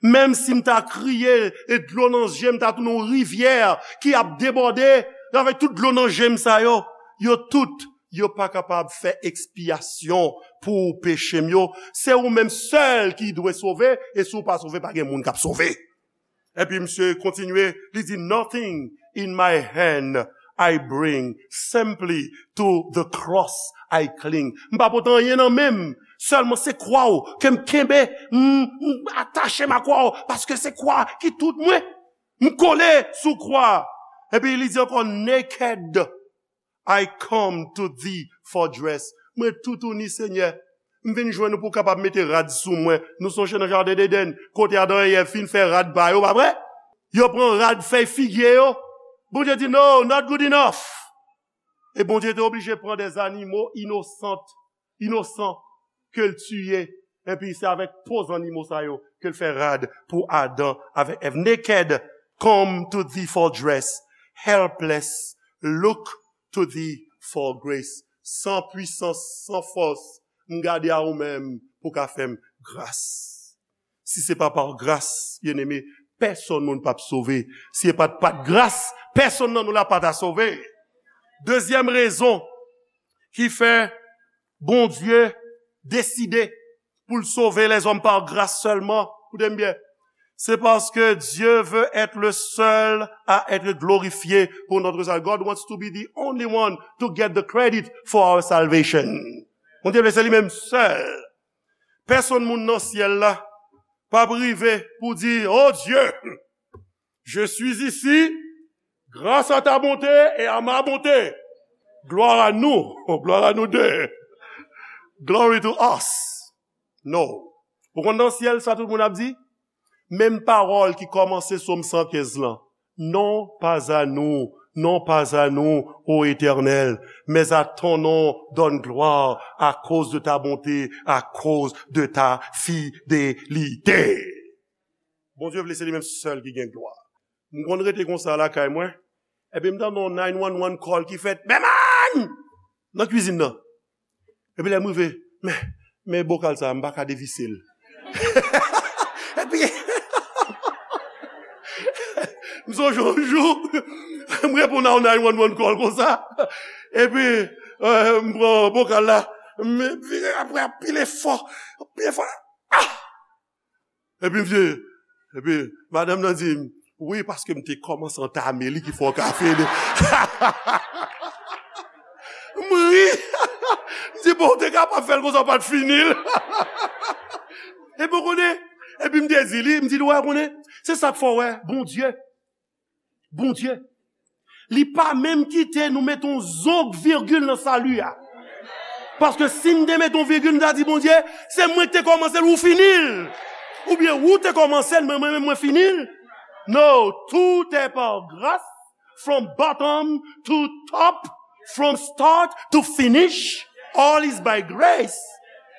menm si m ta kriye e dlo nan je m ta tounen yon rivyè ki ap debòde, avèk tout dlo nan je m sa yo, yo tout, yo pa kapab fè ekspyasyon pou peche m yo. Se ou menm sèl ki dwe sove, e si w pa sove, pa gen moun k ap sove. Epi misye kontinye, li di, "Nothing in my hand I bring, simply to the cross I cling." M pa pote anyen nan men m, sèlman se kwa w ke m kenbe, m, m atache m a kwa w, paske se kwa ki tout mwen. M kole sou kwa. Epi li di ankò, "Naked I come to thee for dress." Mwen toutouni, Senyè. M vin jwenn ou pou w kapab mete rad sou mwen. Nou sonje nan jaden Edenn, kote Adan e Èv fin fè rad ba yo, pa vre? Yo pran rad fèy figye yo. Bondye di, "No, not good enough." E Bondye te oblije pran de zanimo inosant, inosan, ke l tiye. Epi se avèk po zannimo sa yo ke l fè rad pou Adan avèk Èv. Naked, come to thee for dress. Helpless, look to thee for grace. San pwisans, san fòs, m gade a ou menm pou ka fè m gras. Si se pa pa gras, byeneme, pèsonn moun p ap sove. Si se pa t, pa t gras, pèsonn nan nou la pa ta sove. Dezyèm rezon ki fè Bondye deside pou l sove lèzòm pa gras sèlman, koute m byen, se paske Dieu veut être le seul à être glorifié pour notre salut. God wants to be the only one to get the credit for our salvation. Bondye vle se li menm sèl. Pèsonn moun nan syèl la p ap rive pou di, "Oh Dieu, je suis ici grâce à ta bonté et à ma bonté. Gloire à nous, gloire à nous deux. Glory to us." No. Ou konn nan syèl sa tout moun ap di? Menm pawòl ki kòmanse Sòm san kenz lan. Non pas à nous, non pas à nous, ô Éternel, mais à ton nom donne gloire à cause de ta bonté, à cause de ta fidélité. Bondye vle se li menm sèl ki gen glwa. M konn rete konsa lakay mwen, epi m tande yon nine one one call ki fèt, "Bèman!" Nan kwizin nan. Epi lè m rive, men, men bokal sa, m pa ka devise l. Epi, m sonje yon jou, m reponn a yon nine one one call konsa. Epi, euh, m pran bokal la, m vire apre, anpil efò, anpil efò. Ah! Epi m di, epi madanm nan di m, "Wi, paske m te kòmanse antame li ki fè w ka fini." M ri. M di, "Bon, w te kapab fè l konsa, w pa t fini l." Epi w konnen, epi m te di li, m di li, "Wè, w konnen, se sa k fè w wè, Bondye, Bondye, li pa menm kite nou mete yon zong virgil nan sali a." Paske si m te mete yon virgil, m ta di, "Bondye, se mwen ki te kòmanse l, ou fini l." Oubyen ou te kòmanse l, men mwen menm mwen fini l. No, tout est par grâce, from bottom to top, from start to finish, all is by grace.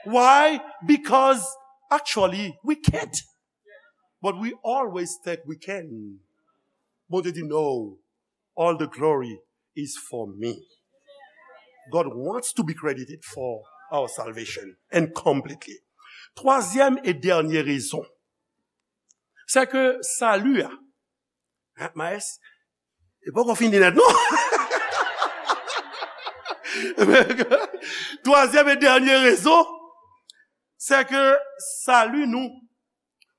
Why? Because actually, we can't. But we always think we can. Bondye di, "No, all the glory is for me." God wants to be credited for our salvation and completely. Twazyèm e dènye rezon, se ke sali a, hein, Maes, e poko fini nèt, non? Twazyèm e dènye rezon, se ke sali nou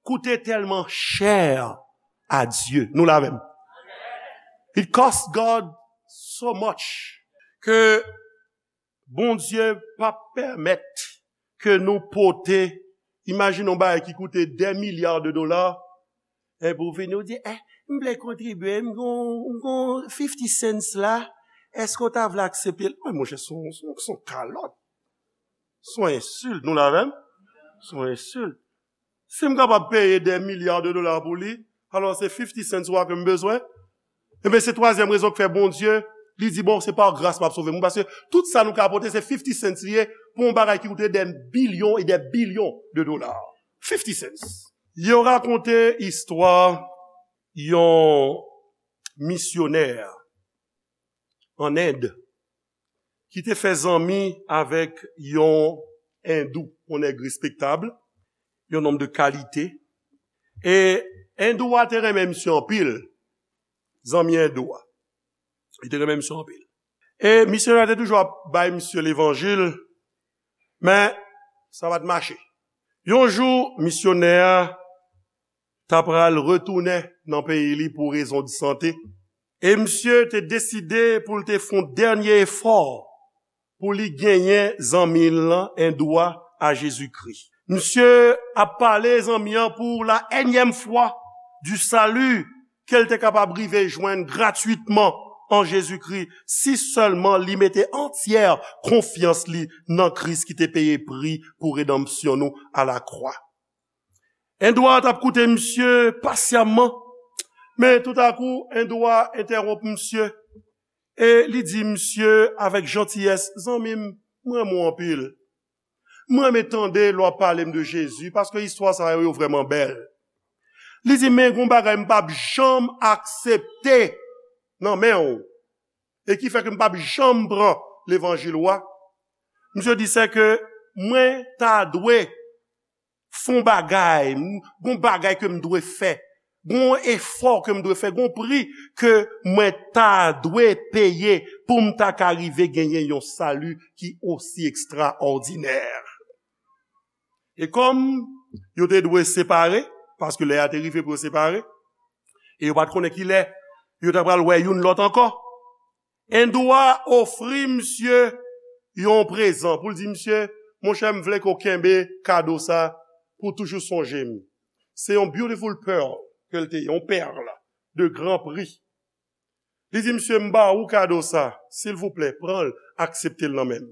koute tèlman chè a Dye. Nou la menm. It cost God so much ke Bondye p ap pèmèt ke nou pote, imajine yon bagay ki koute dè milya de dola, epi w vini, w di, "Eh, m vle kontribye, m gon, m gon fifty cents la, èske w ta vle aksepte l?" Mwen, monchè, se yon, se yon, se yon kalòt. Se yon ensilt, nou la menm? Se yon ensilt. Si m kapab peye dè milya de dola pou li, alò se fifty cents wa ke m bezwen. Ebyen, se twazyèm rezon k fè Bondye, li di, "Bon, se pa gras m ap sove moun," paske tout sa nou ka pote, se fifty cents li ye, pou yon bagay ki koute dè bilyon e dè bilyon de dola. Fifty cents. Yo rakonte istwa yon misyonè an End ki te fè zanmi avèk yon endou, yon nèg respektab, yon nonm de kalite. E endou a te renmen misye anpil, zanmi endou a. Li te renmen misye anpil. E misyonè a te toujou ap bay misye levanjil, men sa pa t mache. Yon jou, misyonè a ta pral retounen nan peyi li pou rezon de sante. E misye te deside pou l te fè yon dènye efò pou li genyen zanmi l lan, endou a, a Jezikri. Misye ap pale zanmi an pou la ènyèm fwa du salut ke l te kapab rive jwenn gratwitman an Jezikri si sèlman li mete antyè konfyans li nan Kris ki te peye pri pou redanmsyon nou alakwa. Endwa t ap koute misye pasyamman, men toutakou, Endwa entèwonp misye e li di misye avèk jantiyès, zanmi m, m renmen w anpil. M renmen tande lè w ap pale m de Jezi, paske istwa sa yo, yo vrèman bèl. Li di, men gon bagay m p ap janm aksepte nan men w, e ki fè ke m p ap janm pran levanjil ou a. Misye di, se ke mwen ta dwe fè yon bagay, m- gon bagay ke m dwe fè, gon efò ke m dwe fè, gon pri ke mwen ta dwe peye pou m ta ka rive genyen yon sali ki osi ekstraòdinè. E kòm yo te dwe separe, paske lè a te rive pou yo separe, e yo pa t konnen ki lè yo ta pral wè youn lòt ankò, Endwa ofri misye yon prezan pou l di, misye, monchè, m vle ke w kenbe kado sa pou toujou sonje m. Se yon beautiful pearl ke l te ye, yon pèl de gran pri. Li di, misye, m ba ou kado sa, silvouplè, pran l, aksepte l nan men m.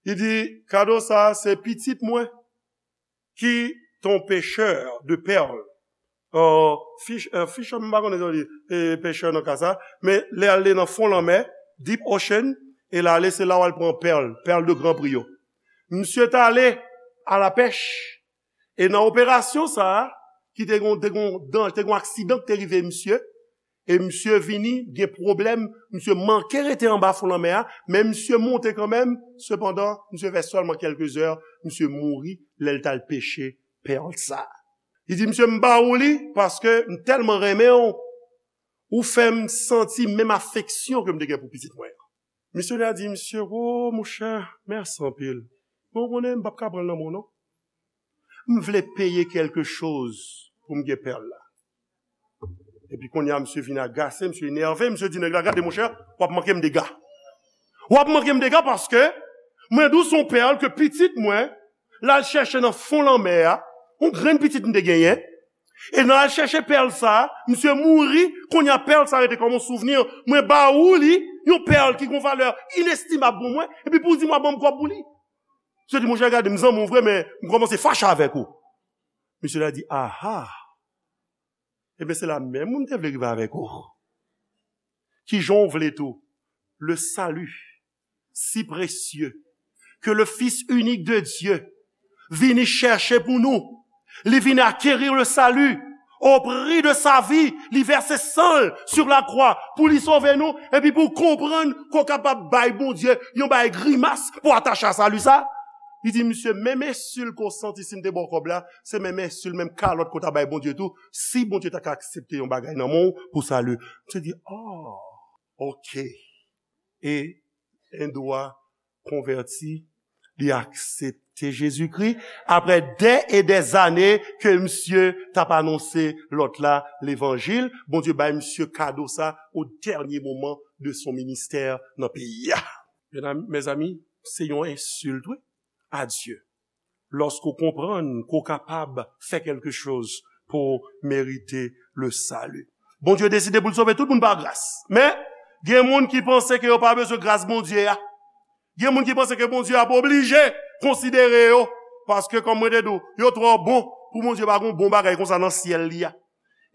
Li di, kado sa, se pitit mwen ki t on pechè de pèl. Euh, fish, euh, fisherman, m pa konnen sa w di, e, pechè nan ka sa, men lè al li nan fon lanmè, deep ocean, e l ale, se la w al pran pèl, pèl de gran pri yo. Misye t ale a la pèch, e nan operasyon sa a, ki te gon, te gon dan-, te gon aksidan ki te rive misye, e misye vini, gen pwoblèm, misye manke rete anba fon lanmè a, men misye monte kanmenm, sepandan, misye fè sèlman kèlke zè, misye mouri lè l t al peche pèl sa. Li di, misye, m ba ou li, paske m tèlman renmen w, ou fè m santi menm afeksyon ke m te gen pou pitit mwen an. Misyonè a di, misye, o, monchè, mèsi anpil. Men w konnen, m p ap ka pran l nan men w, non. M vle peye kèlke choz pou m gen pèl la. Epi kounye a, misye vin agase, misye enève, misye di nèg la, gade, monchè, w ap manke m dega. W ap manke m dega paske mwen di w se yon pèl ke pitit mwen, l al chèche nan fon lanmè a, yon grenn pitit m te genyen, e nan al chèche pèl sa, misye mouri, kounye a pèl sa rete kòm yon souvni, mwen ba ou li, yon pèl ki gon valè inestimab pou mwen, epi pou w di m w ap ban m kòb pou li. Misye di, monchè, gade, m zanmi w vre, men m kòmanse fache avèk ou. Misye la di, aha, ebyen se la menm mwen m te vle rive avèk ou. Kijan w vle tou, le salut si précieux que le Fils unique de Dieu vini chèche pou nou. Li vin acquérir le salut au prix de sa vie. Li vèse san l sur la croix pou li sove nou, epi pou w konprann ke w kapab bay Bondye yon bay grimas pou atache a sali sa. Li di, misye, menm ensil ke w santi si m te ba w kòb la, se menm ensil, menm kalòt ke w ta bay Bondye tou, si Bondye ta ka aksepte yon bagay nan men w pou sali. Misye di, oh, ok. E Endwa konvèti, li aksepte Jezikri. Apre dè e dè zane ke misye t ap anonse lòt la levanjil, Bondye bay misye kado sa o dènye moman de son ministè nan peyi a. Medam, mezanmi, se yon ensilt, wi, a Dye. Lòske w konprann ke w kapab fè kèlke choz pou w merite le salut. Bondye deside pou l sove tout moun pa gras. Men, gen moun ki panse ke yo pa bezwen gras Bondye a. Gen moun ki panse ke Bondye ap oblije konsidere yo. Paske, kòm mwen te di w, yo twò bon pou Bondye pa gen yon bon bagay konsa nan syèl li a.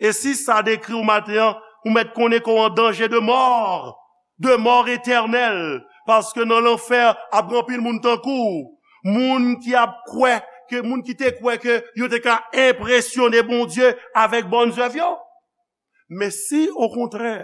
E si sa dekri w maten an, ou mèt konnen ke w an danje de mò, de mò etènèl, paske nan lanfè ap gen anpil moun tankou w, moun ki ap kwè ke, moun ki te kwè ke yo te ka enpresyone Bondye avèk bòn zèv yo. Men si, okontrè,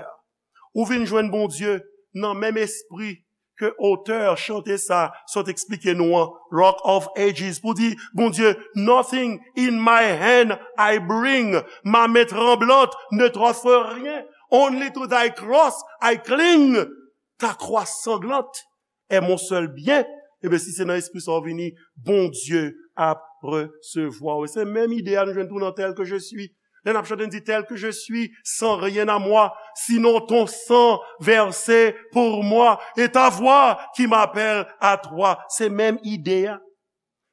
ou vin jwenn Bondye nan menm espri ke otè chante sa sot eksplike nou an, Rock of Ages, pou di, Bondye, nothing in my hand I bring, ma main tremblante ne t'offre rien, only to thy cross I cling, ta croix sanglante est mon seul bien. Ebyen, si se nan espri sa w vini, Bondye ap resevwa w. E se menm ide a nou jwenn tou nan Tel que je suis. Lè n ap chante, n di, tel que je suis, sans rien à moi, sinon ton sang versé pour moi, et ta voix qui m'appelle à toi. Se menm ide a.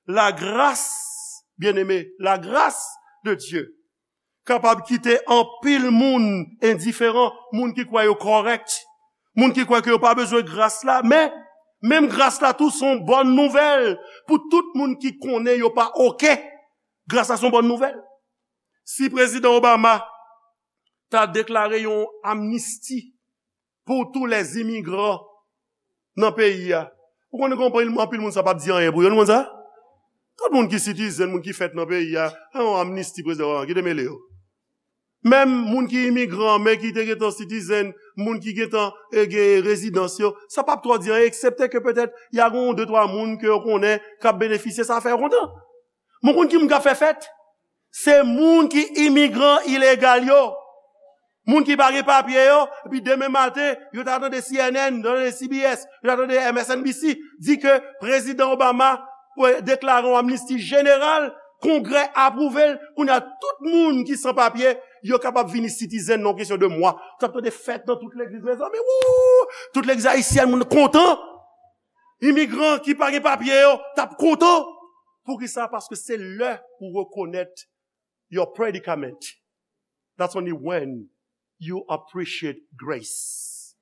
La grâce, bien-aimé, la grâce de Dieu kapab kite anpil moun endiferan, moun ki kwè yo kòrèk, moun ki kwè ke yo pa bezwen gras la, men menm gras la tou se yon bòn nouvèl pou tout moun ki konnen yo pa oke. Gras la se yon bòn nouvèl. Si Prezidan Obama ta deklare yon amnisti pou tous les immigrants nan peyi a, ou konnen gen anpil, anpil moun sa p ap di anyen pou yo, nou konn sa? Tout moun ki citizen, moun ki fèt nan peyi a, a yon amnisti prezidan Obama, ki te mele yo. Menm moun ki imigran, men ki te gentan citizen, moun ki gentan, e, gen rezidans yo, sa p ap twò di anyen, eksepte ke petèt, y a gon de twa moun ke yo konnen k ap benefisye, sa fè yo kontan. Mwen konn ki moun k ap fè fèt? Se moun ki imigran ilegal yo. Moun ki pa gen papye yo, epi demen maten, yo ta tande C N N, yo ta tande C B S, yo ta tande M S N B C, di ke Prezidan Obama, e, deklare yon amnisti jeneral, Kongrè apwouve l, kounye a tout moun ki san papye, yo kapab vini citizen nan kesyon de mwa. Ou t ap tande fèt nan tout legliz, mezanmi, wou! Tout legliz ayisyèn, moun kontan. Imigran ki pa gen papye yo, t ap kontan. Poukisa? Paske se lè ou rekonèt your predicament. That's only when you appreciate grace.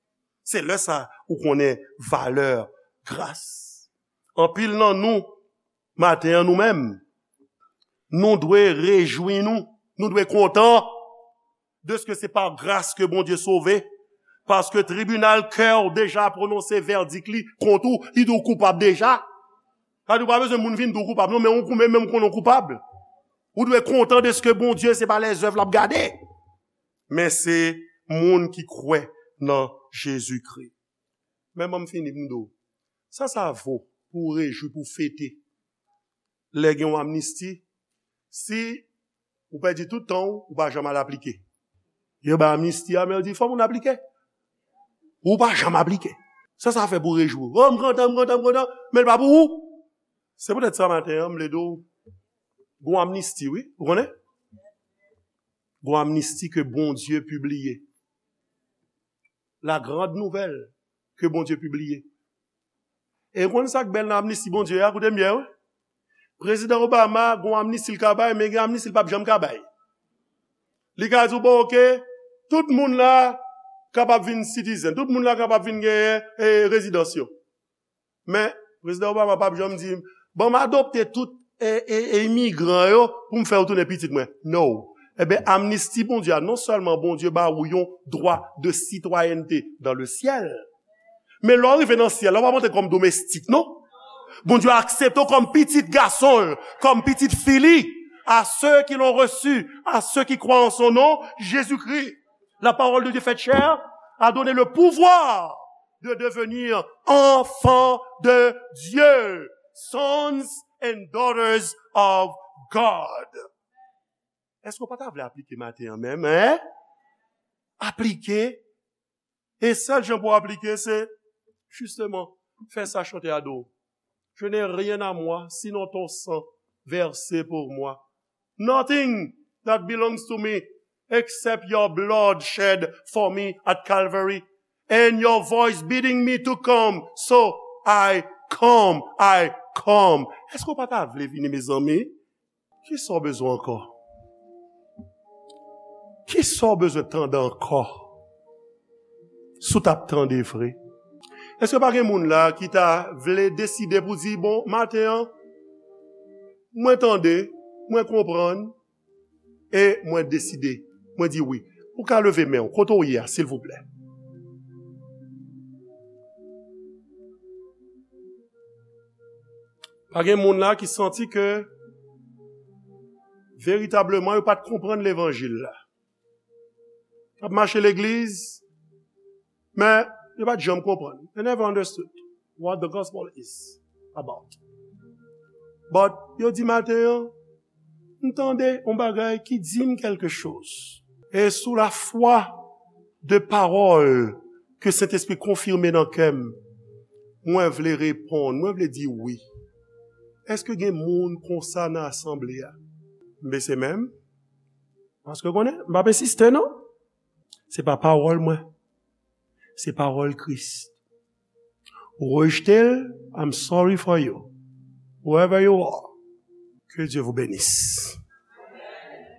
Se lè sa ou konnen valè gras. Anpil nan nou, maten an, nou menm, nou dwe rejwi nou, nou dwe kontan de ce que c'est par grâce que Bondye sove, paske tribinal kè w deja pwononse vèdik li kont ou, li di w koupab deja. Sa di w pa bezwen moun vin di w koupab, non, men ou menm ou konnen w koupab. Ou dwe kontan de ce que Bondye se pa lèzèv l ap gade, men se moun ki kwè nan Jezikri. Men ban m fini pou m di w, sa sa vo pou w rejwi, pou w fete lè gen yon amnisti, si ou pèdi tout tan w, ou pa janm al aplike. Yo bay amnisti a, men yo di fò moun aplike. Ou pa janm aplike. Sa sa fè pou w rejwi w? Oh, m kontan, m kontan, m kontan, men l pa pou ou. Se poutèt sa maten an, m vle di w, gon amnisti, wi, ou konnen? Gon amnisti ke Bondye pibliye. La grande nouvelle ke Bondye pibliye. E w konn sa k bèl nan amnisti Bondye a, koute m byen, wi. Prezidan Obama, gon amnisti l ka bay, men gen amnisti l p ap janm ka bay. Li ka di w, bon, oke, tout moun la kapab vin citizen, tout moun la kapab vin genyen, e, rezidans yo. Men, Prezidan Obama p ap janm di, ban m adopte tout, e, e, e, imigran yo pou m fè yo tounen pitit mwen. No. Ebyen, amnisti Bondye a, non sèlman Bondye ba ou yon dwa de sitwayènte dans le ciel, men lè w rive nan syèl la, w ap antre kòm domestik, non? Bondye aksepte w kòm pitit gason l, kòm pitit fi li. À ceux qui l'ont reçu, à ceux qui croient en son nom, Jésus-Christ, la parole de Dieu faite chair, a donné le pouvoir de devenir enfants de Dieu, sons and daughters of God. Èske w pa ta vle aplike maten an menm, en? Aplike. E sèl jan pou w aplike, se, jisteman, fè sa chante a di w. Je n'ai rien à moi, sinon ton sang versé pour moi. Nothing that belongs to me except your blood shed for me at Calvary and your voice bidding me to come. So I come, I come. Èske w pa ta vle vini, mezanmi? Kisa w bezwen ankò? Kisa w bezwen tande ankò? Si w t ap tande vre. Èske pa gen moun la ki ta vle deside pou di, bon, maten an, mwen tande, mwen konprann, e mwen deside, mwen di wi. Ou ka leve men w, kote w ye a, silvouplè. Pa gen moun la ki santi ke veritableman yo pa t konprann levanjil la. T ap mache legliz, men yo pa t janm konprann. They never understood what the gospel is about. But yo di maten an, m tande yon bagay ki di m kèlke choz. E sou lafwa de pawòl ke Sentespri konfime nan kè m, mwen vle reponn, mwen vle di wi. Èske gen moun konsa nan asanble a? M bese men m. Paske konnen, m p ap ensiste non. Se pa pawòl mwen. Se pawòl Kris. Ou rejte l, I'm sorry for you. Whoever you are, que Dieu vous bénisse.